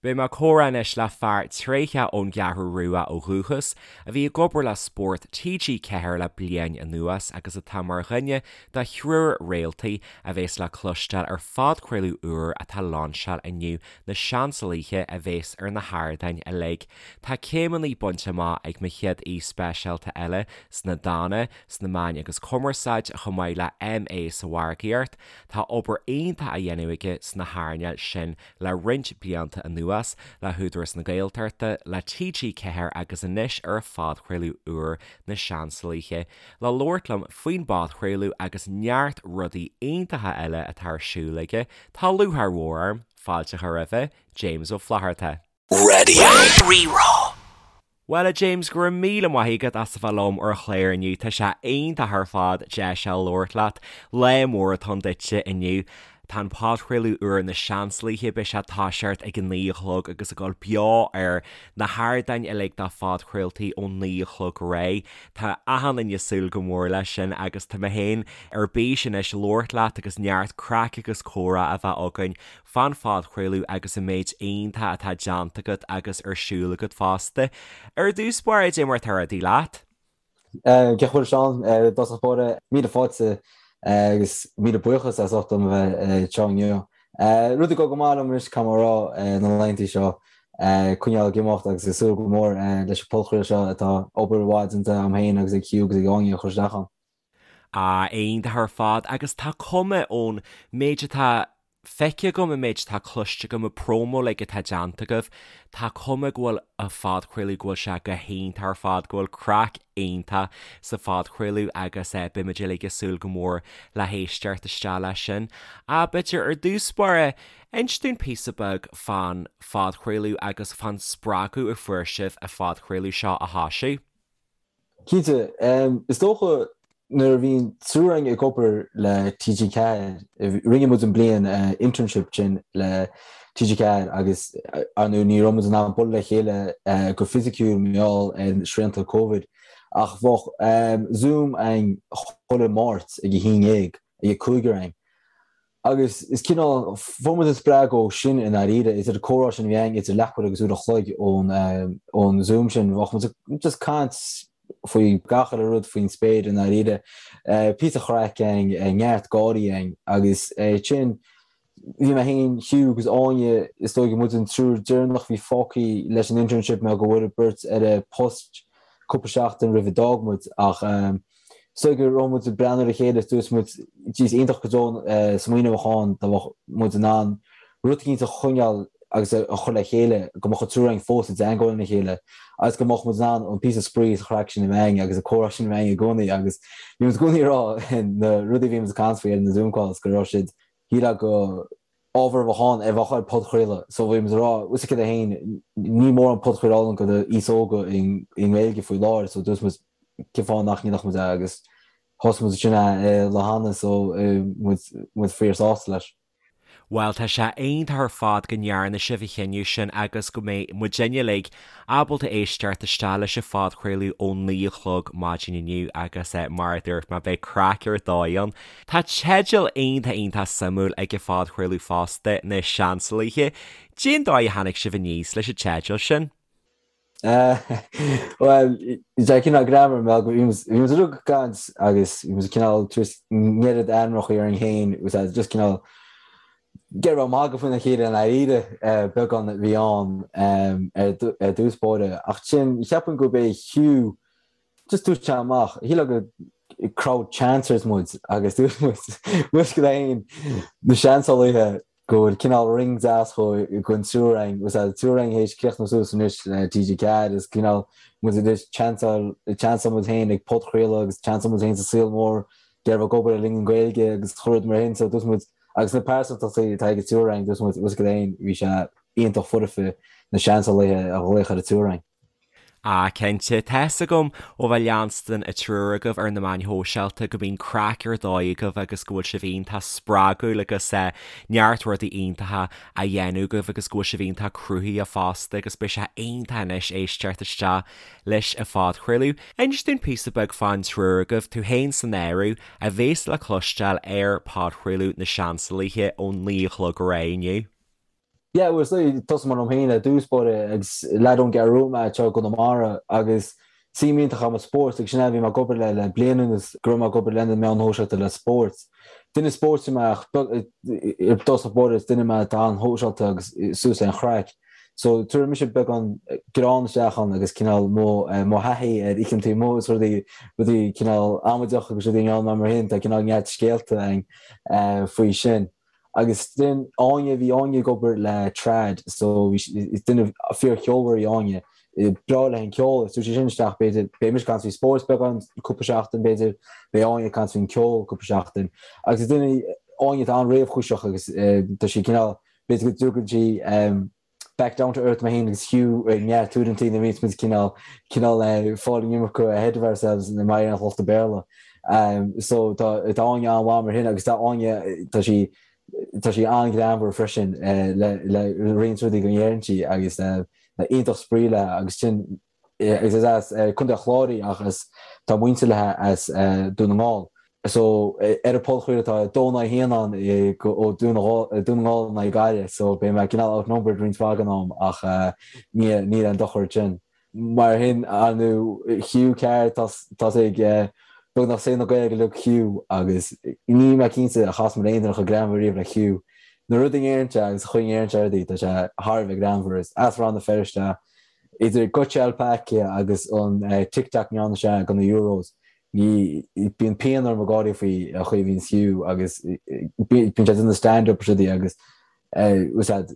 Beidh mé ag comhrá anois le fear tréitheach ón gCeathrú Rua ó dhúchas, a bhí ag obair le Spórt TG4 le bliain anuas agus atá mar dhuine de thriúr réaltaí a bhéas le cloisteáil ar phodchraoladh úr atá lainseáil inniu, Na Seansálaithe, a bhéas ar na hardáin uilig. Tá céimeanna bainte amach ag mo chéad aoi speisialta eile sna Dána, sna Meáin agus Cumarsáid, chomh maith le MA sa Mhargaíocht. Tá obair iontach á dhéanamh aige sna hearnáil sin le roinnt blianta anuas, le hÚdarás na Gaeltachta, le TG4 agus anois ar a phodchraoladh úr Na Seansálaithe, le labhairt liom faoin bpodchraoladh agus neart rudaí iontacha eile atá ar siúl aige, tá lúcháir mhór orm fáilte a chur roimhe, James Ó Flatharta. Raidió Rí-Rá. Bhuel a James, go raibh míle maith agat as a bheith liom ar an chlár inniu, tá sé iontach ar fad deis a labhairt leat. Lá mór atá ann duitse inniu. Tá an podchraoladh úr Na Seansálaithe, beidh sé ag toiseacht ag a 9 a chlog agus ag dul beo ar na hardáin uilig do phodchraoltaí ón 9 a chlog ar aghaidh. Tá achan duine ag súil go mór leis sin agus tá mé féin ar bís anois labhairt leat agus neart craic agus comhrá a bheith againn fán phodchraoladh agus an méid iontach atá déanta agat agus ar siúl agat fosta. Ar dtús báire, dé mar atá rudaí leat? Cén chaoi a bhfuil Seán, i dtosach báire, míle fáilte agus míle buíochas as ucht dom a bheith anseo inniu. Rudaí ag dul go maith liom anois, caithfidh mé a rá, na laethanta seo, coinneáil ag imeacht agus ag súil go mór leis an podchraoladh seo atá obair mhaith déanta agam féin agus ag Hugh agus ag Áine a chur isteach ann. Ah, iontach ar fad agus tá cuma ón méid atá feicthe agam, an méid atá cloiste agam, an promo uilig atá déanta agaibh, tá cuma go bhfuil an phodchraoladh, go bhfuil sé go hiontach ar fad, go bhfuil craic iontach sa phodchraoladh agus beimid uilig ag súil go mór le héisteacht isteach leis sin. Ah, b'fhéidir ar dtús báire, inis dúinn píosa beag fán phodchraoladh agus fán spreagadh a fuair sibh an phodchraoladh seo a thoisiú. Cinnte. Is dócha nuair a bhí an triúr againn ag obair le TG4, rinne muid an bliain internship sin le TG4 agus ar ndóigh ní raibh muid in ann bualadh le chéile go fisiciúil mar gheall ar srianta Covid ach bheadh Zoom againn chuile Máirt ag a haon dhéag ag an cúigear againn. Agus is cineál, fuair muid an spreagadh ó sin i ndáiríre, idir an comhrá sin a bhí againn idir leathuair agus uair a chloig ón ón Zoom sin, bheadh muid ag just caint faoi gach uile rud faoin spéir i ndáiríre. Píosa chraic againn, neart gáirí againn agus sin, bhí mé féin, Hugh agus Áine, is dóigh muid an triúr deireanach a bhí fágtha leis an internship mar go bhfuair beirt eile post cúpla seachtain roimh a d'fhág muid ach Is dóigh go raibh muid ag breathnú ar a chéile is dúirt muid, jeez, iontach go deo an smaoineamh a bheadh ann dá mbeadh muid in ann rud eicínt a choinneáil agus a chur le chéile, go mbeadh an triúr againn fós i dteangmháil lena chéile agus go mbeadh muid in ann an píosa spraoi is an chraic sin a bheith againn agus an comhrá sin a bheith againn i gcónaí agus bhí muid i gcónaí ag rá na rudaí a bhí muid ag caint faoi ar na Zoom calls go raibh siad, shílfeá go ábhar a bheadh ann a bheadh ar podchraoladh so bhí muid ag rá bhfuil a fhios agat féin níl mórán podchraoladh ann do aos óga i nGaeilge faoi láthair so dúirt muid cén fáth nach ndéanfadh muid é agus thosaigh muid ansin é lá cheana so muid muid fíor sásta leis. Bhuel tá sé iontach ar fad go ndearna sibh an chinneadh sin agus go mbeidh muidinne uilig ábalta éisteacht isteach leis an phodchraoladh ón 9 a chlog maidin inniu agus mar a dúirt mé beidh craic ar dóigh ann. Tá teideal iontach iontach suimiúil ag an phodchraoladh fosta, Na Seansálaithe. Cén dóigh a tháinig sibh aníos leis an teideal sin? Bhuel, tá cineál greannmhar mar bhí muid uilig ag caint agus bhí muid cineál tar éis an oiread ainmneacha orainn féin úsáid just cineál ag iarraidh magadh faoina chéile i ndáiríre beagán a bhí ann ar dtús báire. Ach ansin cheapfainn gurb é Hugh Just dúirt sé amach, shílfeá gur crowd chancers muid agus dúirt muid, bhfuil a fhios agat féin, na seansálaithe go bhfuil cineál ring deas don triúr againn, bhfuil a fhios agat, triúr againn théis críochnú suas anois le TG4 is cineál muid anois chanceáil, chanceáil muid féin ag podchraoladh agus chanceáil muid féin sa saol mór ag iarraidh ag obair le linn an Ghaeilge agus chuile rud mar sin so dúirt muid agus na pearsantachtaí atá ag an triúr againn dúirt muid, bhfuil a fhios agat féin, bhí sé iontach foirfe na seansálaithe a ghlaoch ar an triúr againn. Ah, cinnte. Tá fhios agam ó bheith leanstan an triúr agaibh ar na meáin shóisialta go mbíonn craic ar dóigh agaibh agus go bhfuil sibh iontach spreagúil agus neart rudaí iontacha á dhéanamh agaibh agus go bhfuil sibh iontach cruthaitheach fosta agus beidh sé iontach anois éisteacht isteach leis an phodchraoladh. Inis dúinn píosa beag fán triúr agaibh, tú féin san áireamh, a bhéas le cloisteáil ar podchraoladh na Seansálaithe ón 9 a chlog ar aghaidh inniu. Yeah, well, so tosóidh mé liom féin ar dtús báire agus leaid ón gCeathrú Rua mé anseo i gConamara agus suim iontach agam i spórt agus sin é a bhí mé ag obair le le bliain anuas go raibh mé ag obair lena meáin shóisialta le spórt. Duine spóirt mé ach i dtosach báire is duine mé atá an-shóisialta agus suas le an chraic. So tabharfaidh mise beagán greann isteach ann agus cineál mo mo thaithí ar oícheantaí amuigh is rudaí rudaí cineál amaideach agus rudaí i ngeall mar sin tá cineál neart scéalta againn faoi sin. Agus then Áine, bhí Áine ag obair le trad so bhí sí, is duine fíor-cheolmhar í Áine, breá léi an ceol agus tabharfaidh sí sin isteach b'fhéidir, beidh mise ag caint faoi spórt beagán cúpla seachtain b'fhéidir, beidh Áine ag caint faoin ceol cúpla seachtain. Agus is duine í Áine atá an-réamhchúiseach agus tá sí cineál, b'fhéidir go dtugann sí back down to earth mé féin agus Hugh ag neart uaireanta nuair a bhíonns muid cineál cineál fáil an iomarca ahead of ourselves in mar an lucht Béarla. So tá tá Áine an-mhaith mar sin agus tá Áine tá sí tá sí an-ghreannmhar freisin le le roinnt rudaí go ndeireann sí agus iontach spraoi léi agus sin agus is as Contae an Chláir í ach is tá muintir léi as Dún na nGall. So ar an podchraoladh tá 2 in aghaidh 1 ann ó Dún na nGall in aghaidh Gaillimh so beidh mé cineál outnumbered roinnt mhaith den am ach níl aon dochar ansin. Mar sin ar ndóigh Hugh Carr tá sé ag beagnach saol na Gaeilge uilig Hugh agus níl mé cinnte ar chas mé le aon duine chomh greannmhar riamh le Hugh. Na rudaí a ndeireann sé agus an chaoi a ndeireann sé rudaí tá sé thar a bheith greannmhar. Is as Rann na Feirste Idir Gutja Alpaca agus an TikTok a ndearna sé do na Euros, ní, bíonn pian orm ag gáirí faoi an chaoi a bhíonn Hugh agus bíonn sé ag déanamh stand up is rudaí agus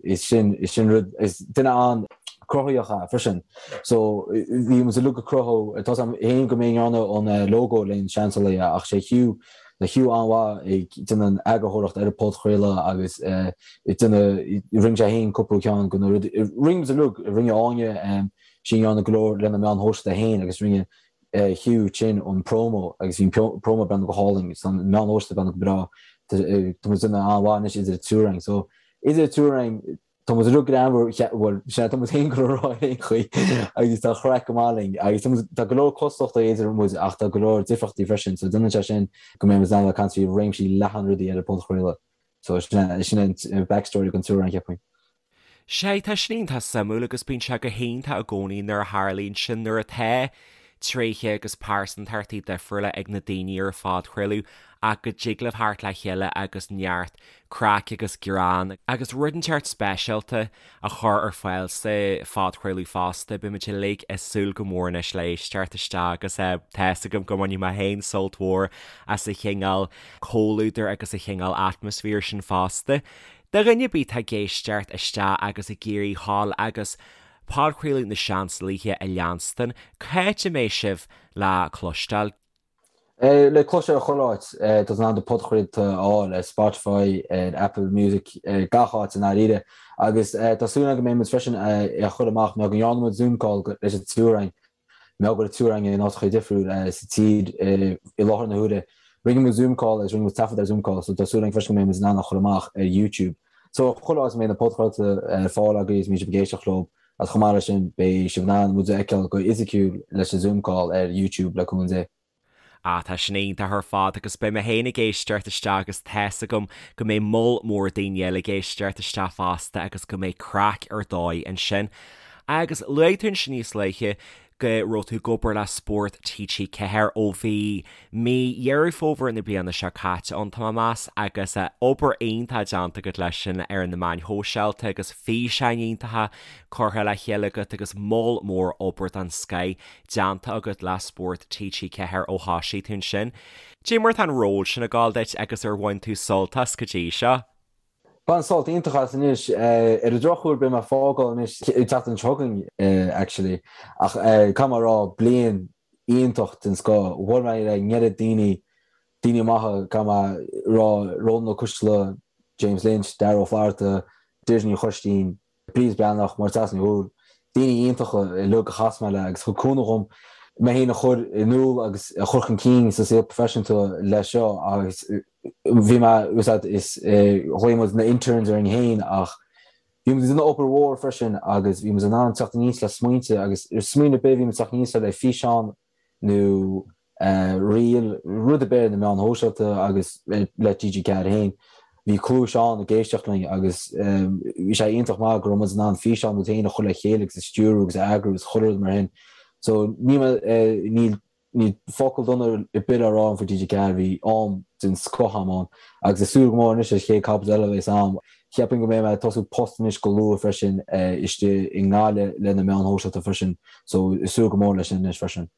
is sin, is sin rud, is duine an-cruthaitheach é freisin. So bhí muid uilig ag cruthú, tá 's agam féin go mé a ndearna an logo le Na Seansálaithe ach sé Hugh Tá Hugh an-mhaith ag déanamh an eagarthóireacht ar an podchraoladh agus ag déanamh, rinne sé féin cúpla ceann de na rudaí, rinne muid uilig, rinne Áine, sí a ndearna go leor lena meáin shóisialta féin agus rinne Hugh sin an promo agus bhí an promo ag breathnú go hálainn agus an meáin shóisialta ag breathnú go breá. Tá muid ag déanamh an-mhaith anois idir an triúr againn. So idir an triúr againn, Tá muid uilig greannmhar, bhuel, sea, tá muid féin ag rá ar aon chaoi agus tá craic go maith linn agus tá muid, tá go leor cosúlachtaí idir muid ach tá go leor difríochtaí freisin so déanann sé sin go mbeidh muid in ann a caint faoi réimsí leathan rudaí ar an podchraoladh. So sin é, sin é an backstory don triúr againn, cheapfainn. Sea, tá sin iontach suimiúil agus bíonn sé go hiontach i gcónaí nuair a tharlaíonn sin, nuair atá tréithe agus pearsantachtaí difriúla ag na daoine ar an phodchraoladh ach go dtig libh theacht le chéile agus neart craic agus greann agus rud inteacht speisialta a chur ar fáil sa phodchraoladh fosta. Beidh muid uilig ag súil go mór anois le éisteacht isteach agus tá fhios agam go mbainfidh mé féin sult mhór as an chineál comhluadair agus an chineál atmaisféir sin fosta. Do dhuine ar bith atá ag éisteacht isteach agus ag iarraidh dhul agus podchraoladh na Seansálaithe a leanstan, cá háit a mbeidh sibh le cloisteáil? Le cloisteáil ar chuile áit, tá tú in ann do podchraolta a fháil ar Spotify, ar Apple Music, gach áit i ndáiríre. Agus tá súil agam go mbeidh muid freisin á chur amach, mar go ndearna muid Zoom call leis an triúr againn, mar go bhfuil an triúr againn in áiteacha difriúil sa tír i láthair na huaire. Rinne muid Zoom call agus rinne muid taifead ar Zoom call, so tá súil agam freisin go mbeidh muid in ann á chur amach ar YouTube. So chuile áit a mbeidh na podchraolta ar fáil agaibh is mbeidh sibh ag éisteacht leo. Agus chomh maith leis sin, beidh sibh in ann muid a fheiceáil go fhisiciúil leis an Zoom call ar YouTube le cúnamh Dé. Ah, tá sin iontach ar fad agus beidh mé féin ag éisteacht isteach agus tá's agam go mbeidh moll mór daoine eile ag éisteacht isteach fosta agus go mbeidh craic ar dóigh ansin. Agus luaigh tú ansin níos luaithe go raibh tú ag obair le Spórt TG4 ó bhí mí Dheireadh Fómhair na bliana seo caite ann, tá mé ag meas, agus obair iontach déanta agat leis sin ar na meáin shóisialta agus físeáin iontacha curtha le chéile agat agus moll mór obair den scoith déanta agat le Spórt TG4 ó thosaigh tú ansin. Cad é mar atá an ról sin ag gabháil duit agus ar bhain tú sult as go dtí seo? Bain sult iontach as anois. Ar an drochuair beidh mé ag fágáil anois an tseachtain seo chugainn actually ach caithfidh mé a rá bliain iontach den scoth. Bhuail mé le an oiread daoine, daoine maithe caithfidh mé a rá, Rónán Ó Coisdealbha, James Lynch, Darragh Ó Flatharta, Deirdre Ní Choistín, Bríd Breathnach, Máire Treasa Ní Dhubhghaill, daoine iontacha uilig a chas mé le agus thug cúnamh dhom mé féin a chur in iúl agus a chur chun cinn sa saol proifisiúnta le seo agus bhí mé, is ghlaoigh muid na interns orainn féin ach bhí muid ag déanamh obair mhór freisin agus bhí muid in ann teacht aníos le smaointe agus smaoineamh ar bith bhí muid teacht aníos le físeán nó reel, rud ar bith ar na meáin shóisialta agus le TG4 féin. bhí cluais ann ag éisteacht linn agus bhí sé iontach maith go raibh muid in ann físeán muid féin a chur le chéile agus a stiúrú agus a eagrú agus chuile rud mar shin. So níl mé, níl, níl focal dona ar bith le rá agam faoi TG4, bhí am den scoth agam ann agus ag súil go mór anois leis an chéad chaibidil eile a bheas agam. Cheapfainn go mbeidh mé ag tosú post anois go luath freisin istigh i nGaillimh le na meáin shóisialta freisin so ag súil go mór leis sin anois freisin.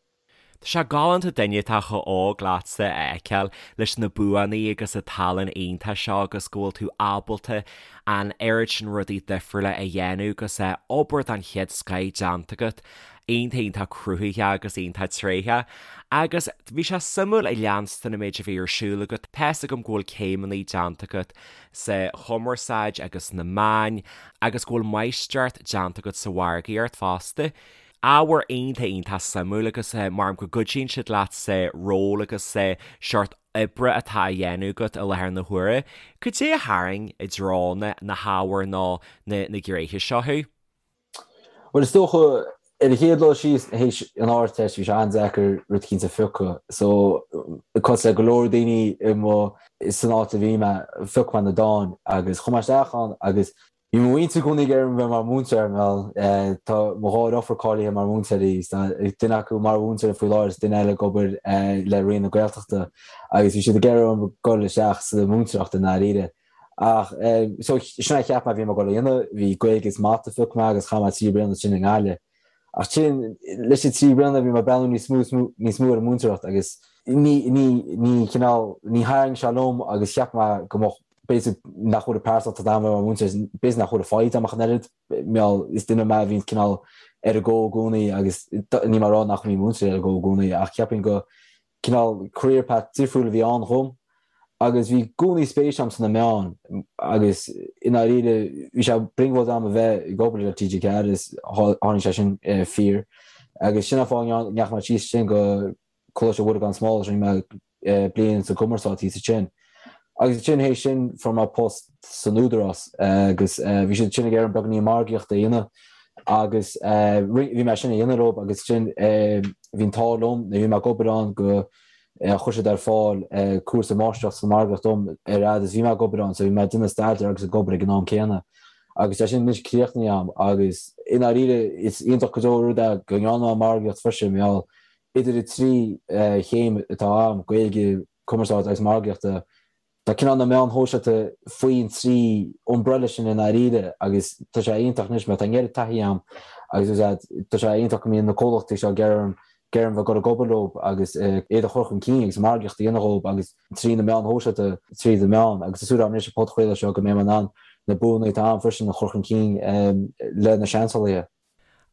Tá sé galánta duine atá chomh hóg leatsa a fheiceáil leis na buanna agus an tallann iontach seo agus go bhfuil tú ábalta an oiread sin rudaí difriúla a dhéanamh agus obair den chéad scoith déanta agat. Iontach iontach cruthaitheach agus iontach tréitheach. Agus bhí sé suimiúil ag leanstan an méid a bhí ar siúl agat. Tá's agam go bhfuil céimeanna déanta agat sa chumarsáid agus sna meáin agus go bhfuil máistreacht déanta agat sa mhargaíocht fosta. Ábhar iontach iontach suimiúil agus measaim go gcuidíonn siad leat sa ról agus sa seort oibre atá á dhéanamh agat i láthair na huaire. Cad é a tharraing i dtreo na na hábhair nó na na gnéithe seo thú? Bhuel is dócha ar an chéad dul síos théis an Ardteist bhí sé an-deacair rud eicínt a phiocadh so cosúil le go leor daoine i mo san áit a bhí mé phioc mé na dáin agus chuaigh mé isteach ann agus Bhí mo mhuintir i gcónaí ag iarraidh orm bheith mar mhúinteoir, bhuel, tá mo dhá dheirfiúr cáilithe mar mhúinteoirí, tá duine acu mar mhúinteoir faoi láthair is duine eile ag obair le Roinn na Gaeltachta agus bhí siad ag iarraidh orm dul isteach sa mhúinteoireacht i ndáiríre. Ach, so, sin é a cheap mé a bhí mé ag dul a dhéanamh, bhí Gaeilge is Mata a phioc mé agus chaith mé 3 bliana ansin i nGaillimh. Ach sin, leis na 3 bliana bhí mé ag breathnú níos mó is níos mó ar an múinteoireacht agus ní, ní, ní cineál, ní tharraing sé liom agus cheap mé go mbeadh b'fhéidir nach bhfuil an pearsantacht agam mar mhúinteoir, b'fhéidir nach bhfuil an foighid agam ach an oiread, mar is duine mé a bhíonn cineál ar an go i gcónaí agus níl mé ag rá nach mbíonn múinteoirí ar an go i gcónaí ach cheapfainn go cineál career path difriúil a bhí ann dhom agus bhí i gcónaí spéis agam sna meáin agus i ndáiríre bhí sé brionglóid agam a bheith ag obair le TG4 is tháinig sé sin fíor agus sin an fáth a ndeachaigh mé síos sin go Coláiste Mhuire gan Smál rinne mé bliain sa gcumarsáid thíos ansin. Agus ansin théis sin fuair mé post san Údarás agus bhí siad ansin ag iarraidh orm beagáinín margaíochta a dhéanamh agus bhí mé sin a dhéanamh leo agus ansin bhí an t-ádh liom nuair a bhí mé ag obair ann go chuir siad ar fáil cúrsa máistreacht sa mhargaíocht dom ar fhad is bhí mé ag obair ann so bhí mé ag déanamh staidéar agus ag obair ag an am céanna. Agus tá sin anois críochnaithe agam agus i ndáiríre is iontach go deo rud é go ndearna mé margaíocht freisin mar gheall Idir an trí chéim atá agam, Gaeilge, Cumarsáid agus Margaíochta, tá cineál na meáin shóisialta faoin trí umbrella sin i ndáiríre agus tá sé iontach anois mar tá an oiread taithí agam agus tá sé iontach go mbíonn na comhlachtaí seo ag iarraidh orm bheith ag dul ag obair leo agus iad a chur chun cinn agus margaíocht a dhéanamh dhóibh agus trí na meáin shóisialta, trí na meáin agus tá súil agam anois an podchraoladh seo go mbeidh mé in ann na buanna atá agam freisin a chur chun cinn le na seansálaithe.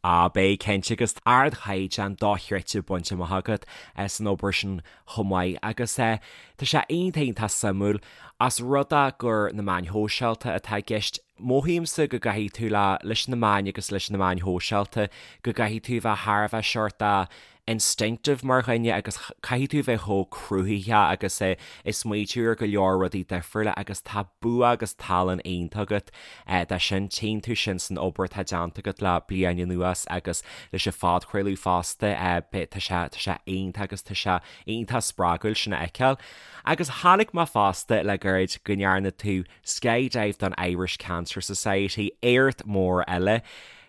Á, beidh, cinnte, agus ardchaighdeán dochreidte bainte amach agat san obair sin chomh maith agus tá sé iontach iontach suimiúil ós rud é gur na meáin shóisialta atá i gceist. Mothaímse go gcaithfidh tú le leis na meáin agus leis na meáin shóisialta go gcaithfidh tú a bheith thar a bheith seort instinctive mar dhuine agus caithfidh tú bheith chomh cruthaitheach agus ag smaoitiú ar go leor rudaí difriúla agus tá bua agus tallann iontach agat dó sin. Tchíonn tú sin san obair atá déanta agat le bliain anuas agus leis an phodchraoladh fosta. Tá sé tá sé iontach agus tá sé iontach spreagúil sin a fheiceáil. Agus chonaic mé fosta le gairid go ndearna tú skydive don Irish Cancer Society, éacht mór eile.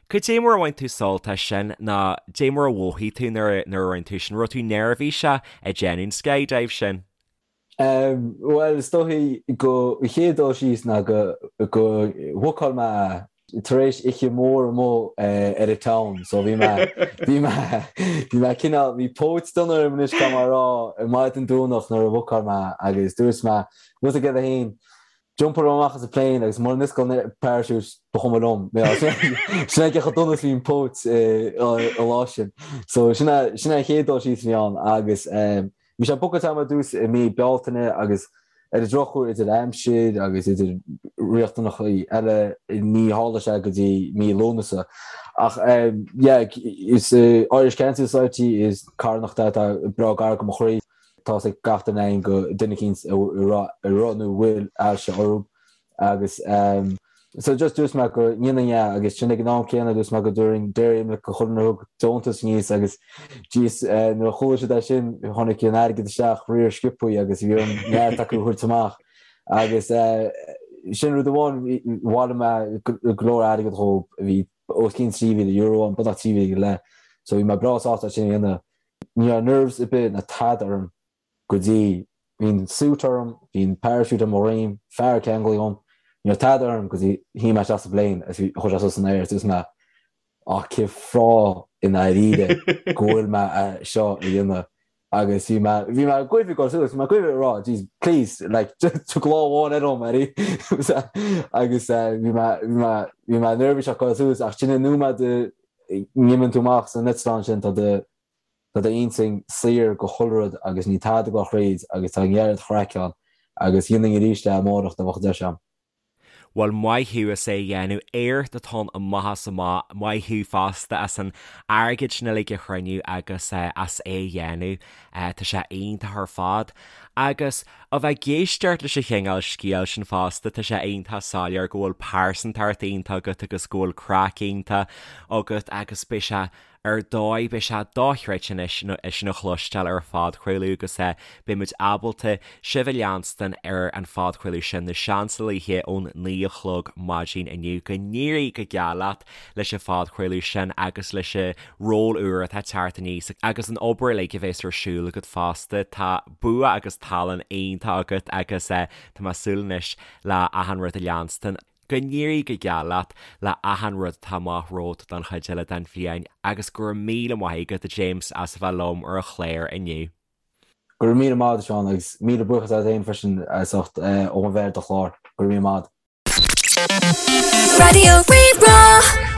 Cad é mar a bhain tú sult as sin nó cad é mar a mhothaigh tú nuair a rinne tú sin? Raibh tú neirbhíseach ag déanamh an skydive sin? Bhuel, is dóichí go an chéad dul síos ná go go bhookáil mé tar éis oíche mhór amuigh ar an town so bhí mé bhí mé bhí mé cineál bhí póit dona orm anois caithfidh mé a rá ar maidin Domhnach nuair a bhookáil mé agus dúirt mé rud aige féin Jumpáil amach as an plane agus mura n-osclaíonn an parachute ba chuma liom. Sin é cé chomh dona is bhí an póit an lá sin. So sin é sin é an chéad dul síos a bhí ann agus bhí sé bookáilte agam ar dtús i mí Bealtaine agus ar an drochuair idir aimsir agus idir riachtanachaí eile ní tharla sé go dtí mí Lúnasa. Ach yeah is Irish Cancer Society is carthanacht é atá breá gar go mo chroí. Tá's ag gach duine againn go duine eicínt a raibh nó a bhfuil ailse orthu agus so just dúirt mé go ndéanfainn é agus sin ag an am céanna dúirt mé go dtabharfainn Dairy Milk do chuile dhuine a thug deontas aníos agus jeez nuair a chuala siad é sin tháinig an airgead isteach riar sciobthaí agus bhí orm neart acu a thabhairt amach. Agus sin rud amháin, bhailigh mé go leor airgead dhóibh, bhí os cionn €3,000 ann, beagnach 3,000 go leith, so bhí mé breá sásta é sin a dhéanamh. Ní raibh nerves ar bith ná tada orm go dtí, bhí an suit orm, bhí an parachute ar mo dhroim, fear ag ceangal dhom, ní raibh tada orm go dtí shuigh mé isteach sa bplane agus bhí, chuaigh sé suas san aer agus dúirt mé, Ach cén fáth i ndáiríre go bhfuil mé é seo a dhéanamh agus bhí mé, bhí mé ag goimh ag dul suas, bhí mé ag goimh ag rá, jeez, please, like, tóg lámh amháin eile dhom, Eddie. Agus bhí mé, bhí mé, bhí mé neirbhíseach ag dul suas ach sin an nóiméad a n-imíonn tú amach san eitleán sin, tá do, tá d'intinn saor go chuile rud agus níl tada ag dul thríd agus tá an oiread craic ann agus dhéanfainn arís é amárach dá mbeadh an deis agam. Bhuel, maith thú as é a dhéanamh. Éacht atá ann amach is amach. Maith thú fosta as an airgead sin uilig a chruinniú agus as é a dhéanamh. Tá sé iontach ar fad. Agus a bheith ag éisteacht leis an chineál scéil sin fosta, tá sé iontach soiléir go bhfuil pearsantacht iontach agat agus go bhfuil craic iontach agat agus beidh sé Ar dóigh, beidh sé dochreidte anois é sin a chloisteáil ar an phodchraoladh agus beidh muid ábalta sibh a leanstan ar an phodchraoladh sin, Na Seansálaithe ón 9 a chlog maidin inniu. Go n-éirí go geal leat leis an phodchraoladh sin agus leis an ról úr atá ag teacht aníos agus an obair uilig a bheas ar siúl agat fosta. Tá bua agus tallann iontach agat agus tá mé ag súil anois le achan rud a leanstan. Go n-éirí go geal leat le achan rud atá amach romhat don chuid eile den bhliain agus go raibh míle maith agat, a James, as a bheith liom ar an chlár inniu. Go raibh míle maith agat, a Sheáin, agus míle buíochas leat féin freisin as ucht dom a bheith ar do chlár. Go raibh míle maith agat. Raidió Rí-Rá.